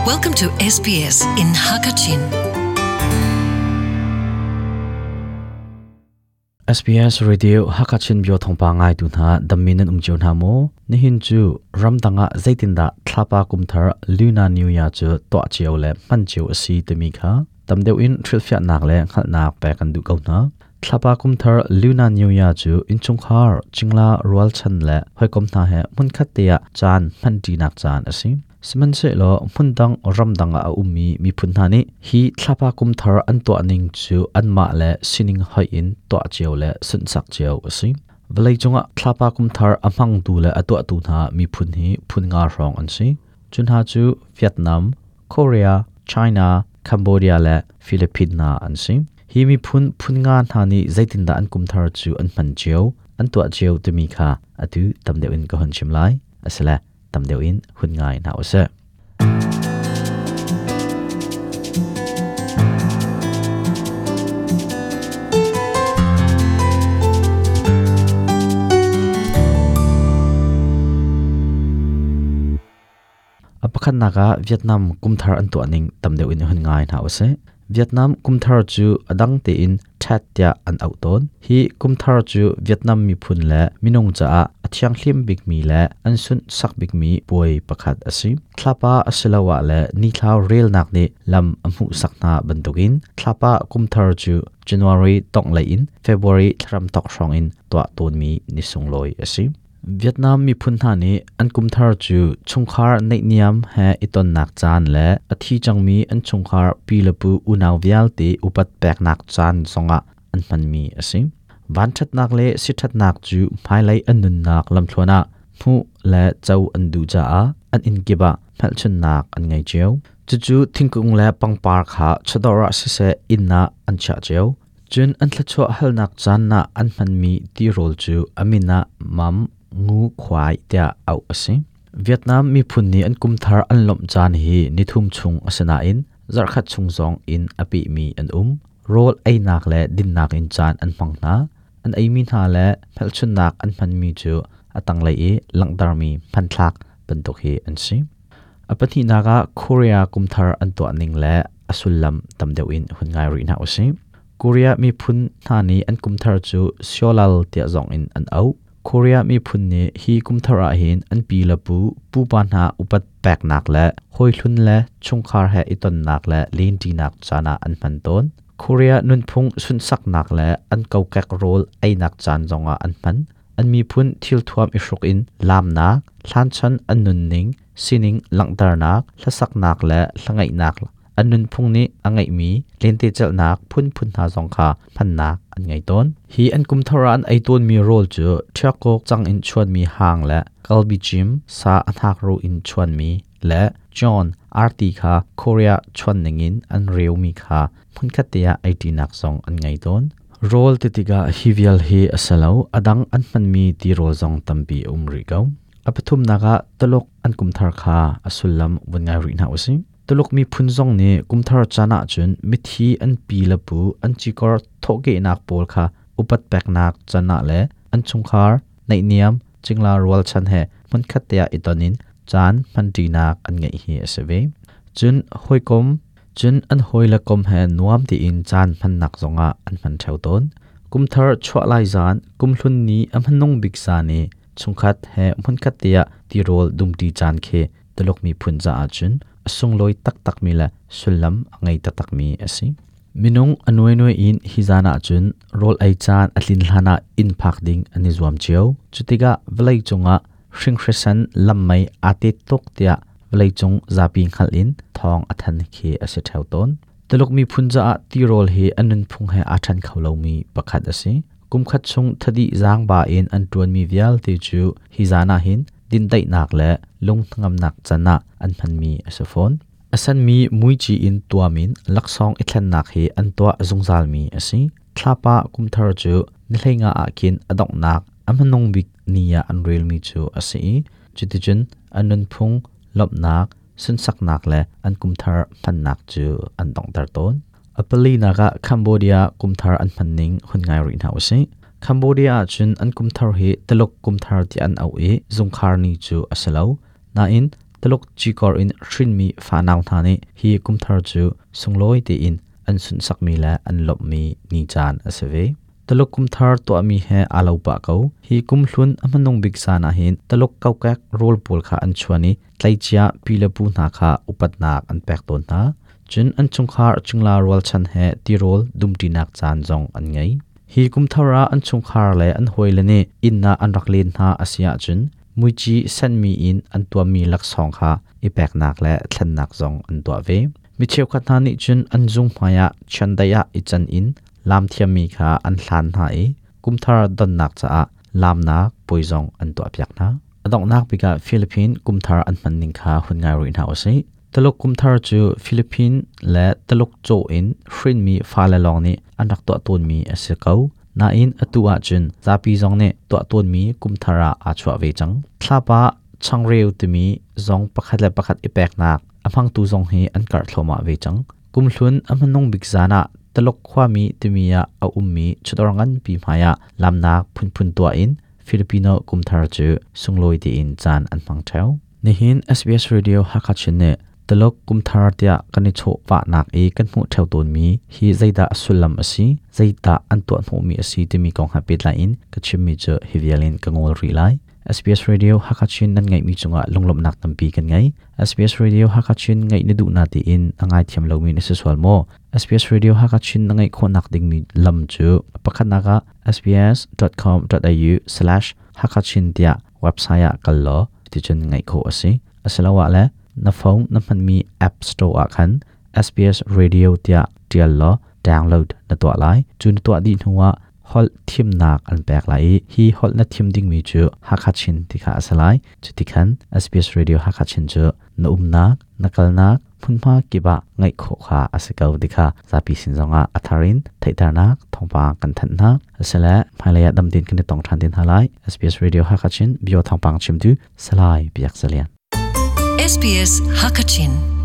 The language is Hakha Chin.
Welcome to SBS in Hakachin. SBS Radio Hakachin bio thongpa ngai tu hna dammi nan um cio hna maw? Nihin cu ramdang ah zeitindah thlapa kumthar Lunar New Year cu tuah cio le hman cio a si timi kha tam deuh in hrilhfiahnak le hngalhnak pek kan duh ko hna. Thlapa kumthar Lunar New Year cu innchungkhar, cingla, rualchan le hawikom hna he hmunkhat te ah caan hmanṭinak caan a si. Sihmanhsehlaw hmundang ramdang ah a ummi miphun hna nih hi thlapa kumthar an tuah ning cu anmah le sining hoih in tuah cio le sunhsak cio a si. Vawleicung ah thlapa kumthar a hmangtu le a tuahtu hna miphun hi phun nga hrawng an si. Cu hna cu Vietnam, Korea, China, Cambodia le Philippines hna an si. Hi miphun phun nga hna nih zeitindah an kumthar cu an hman cio, an tuah cio timi kha atu tam deuh in ka hun chim lai. Asile tam deuh in hun ngai hna usih. A pakhatnak ah Vietnam kumthar an tuah ning tam deuh in hun ngai hna usih. Vietnam kumthar cu a dang tein Tet tiah an auh tawn. Hi kumthar cu Vietnam miphun le minung caah a thianghlim bikmi le an sunhsak bikmi puai pakhat a si. Thlapa asiloah le nithlau relnak nih lam a hmuhsak hna bantukin thlapa kumthar cu January tonglei in February thlarem thawk hrawng in tuah tawnmi ni sunglawi a si. Vietnam miphun hna nih an kumthar cu chungkhar naihniam he i tonnak caan le a thi cangmi an chungkhar pi le pu unau vialte upat peknak caan zongah an hmanmi a si. Vanṭhatnak le siṭhatnak cu hmailei an nunnak lamthluan ah hmuh le co an duh caah an inn kip ah hmelchunhnak an ngei cio. Cucu thingkung le pangpar kha chawdawr ah siseh inn ah an chiah cio. Cun an thluachuah halnak caan ah an hmanmi tirawl cu a min ah mam ngu khuai tiah auh a si. Vietnam miphun nih an kumthar an lawmh caan hi nithum chung a si nain zarhkhat chung zong in a pehmi an um. Rawl einak le dinnak in caan an hmang hna. An eimi hna le hmelchunhnak an hmanmi cu a tanglei i langhtermi hmanthlak bantuk hi an si. A pahnihnak ah Korea kumthar an tuah ning le a sullam tam deuh in hun ngai rih hna usih. Korea miphun hna nih an kumthar cu Seollal tiah zong in an auh. Korea miphun nih hi kumthar ah hin an pi le pu, pupa hna upat peknak le hawihlun le chungkhar he i tonnak le lenṭinak caan ah an hman tawn. Korea nunphung sunhsaknak le an kokek rawl einak caan zongah an hman. An miphun thilthuam i hruk in laamnak, hlanchan an nunning, sining langhternak, hlasaknak le hlangaihnak an nunphung nih a ngeihmi lentecelhnak phunphun hna zong kha hmannak an ngei tawn. Hi an kumthar ah an ei tawnmi rawl cu ṭhiakawk cang in chuanmi hang le kalbijim sa a hnakruh in chuanmi le John arti kha Korea chuan ningin an reumi kha hmunkhat te ah eiṭinak zong an ngei tawn. Rawl ti tikah hi vial hi a si lo, a dang an hmanmi tirawl zong tampi a um rih ko. A pathumnak ah Tuluk an kumthar kha a sullam vun ngai rih hna usih. Tuluk miphun zong nih kumthar caan ahcun mithi an pi le pu an cikor thawhkehnak pawl kha upat peknak can ah le an chungkhar naihniam cingla rualchan he hmunkhat te ah i ton in caan hmanṭinak an ngeih hi a si ve. Cun hawikom cun an hawile kom he nuam tiin caan hmannak zongah an hman ṭheo tawn. Kumthar chuah lai zan, kumhlun ni a hmanung bik zan i chungkhat he hmunkhat te ah tirawl dumṭi caan khi Tuluk miphun caah cun a sunglawi taktakmi le sullam a ngei taktakmi a si. Minung a nuainuai in hi zan ah cun rawl ei caan a tlin hlan ah inn phak ding an i zuam cio. Cutikah vawlei cungah hringhrisan lammei aa tet tuk tiah vawleicung zapi hngalh in thawng a than khi a si ṭheo tawn. Tuluk miphun caah tirawl hi an nunphung he aa ṭhen kho lomi pakhat a si. Kumkhat chung thadih zaangba in an ṭuanmi vialte cu hi zan ah hin dindaihnak le lunghnangamnak can ah an hmanmi a si fawn. A senmi muici in tuam in laksawng i thlennak hi an tuah zungzalmi a si. Thlapa kumthar cu ni hleinga ah khin a donghnak a hmanung bik ni ah an relmi cu a si i cuticun an nunphung lawmhnak, sunsaknak le an kumthar hmannak cu an donghter tawn. A palinak ah Cambodia kumthar an hmanning hun ngai rih hna usih. Cambodia ahcun an kumthar hi Tuluk kumthar ti an auh i zungkhar ni cu a si lo. Nain Taluk cikor in hrinmi fanau hna nih hi kumthar cu sunglawi tein an sunhsakmi le an lawmhmi ni caan a si ve. Taluk kumthar tuahmi he aa lo pah ko. Hi kumhlun a hmanung bik zan ah hin Taluk kokek rawl pawl kha an chuan i tleicia pi le pu hna kha upatnak an pek tawn hna. Cun an chungkhar cingla rualchan he tirawl dumṭinak caan zong an ngei. Hi kumthar ah an chungkhar le an hawile nih inn ah an rak len hna a si ahcun muici senmi in an tuammi laksawng kha i peknak le thlennak zong an tuah ve. Mi cheukhat hna nih cun an zung hmaiah chiandeih ah i can in laam thiammi kha an hlan hna i kumthar donnak caah laamnak puai zong an tuahpiak hna. A donghnak bik ah Philippine kumthar an hman ning kha hun ngai rih hna usih. Taluk kumthar cu Philippine le Taluk caw in hrinmi fale lawng nih an rak tuah tawnmi a si ko. Nain atu ahcun zapi zong nih tuah tawnmi kumthar ah aa chuah ve cang. Thlapa changreu timi zong pakhat le pakhat i peknak a hmangtu zong hi an karh thluahmah ve cang. Kumhlun a hmanung bik zan ah Taluk khuami timi ah a ummi chawdawr nganpi hmaiah lamnak phunphun tuah in Filipino kumthar cu sunglawi tein caan an hmang ṭheo. Nihin SBS Radio Hakha Chin nih Taluk kumthar tiah kan i chawhvahnak i kan hmuh ṭheo tawnmi hi zeidah a sullam a si, zeidah an tuah hnawhmi a si timi kong he pehtlai in ka chimmi cu hi vial in ka ngol rih lai. SBS Radio Hakha Chin nan ngaihmi cungah lunglawmhnak tampi kan ngei. SBS Radio Hakha Chin ngaih na duh na tiin a ngaithiam lomi na si sual maw? SBS Radio Hakha Chin na ngaih khawhnak dingmi lam cu pakhatnak ah sbs.com.au/hakachin tiah website ah kal law ticun ngaih khawh a si. Asiloah le na phone na hmanmi app store ah khan SBS Radio tiah ṭial law download na tuah lai. Cu na tuah dih hnuah holh thimnak an pek lai i hi holh na thim dingmi cu Hakha Chin ti kha a si lai. Cuti khan SBS Radio Hakha Chin cu na umnak, na kalnak, hmunhma kip ah ngaih khawh kha a si ko ti kha zapi sin zongah a thar in theihternak thawngpang kan thanh hna. Asile hmailei ah dam tein kan i tong ṭhan te hna lai. SBS Radio Hakha Chin bio thawngpang chimtu Salai Biak Zalian. SBS Hakachin.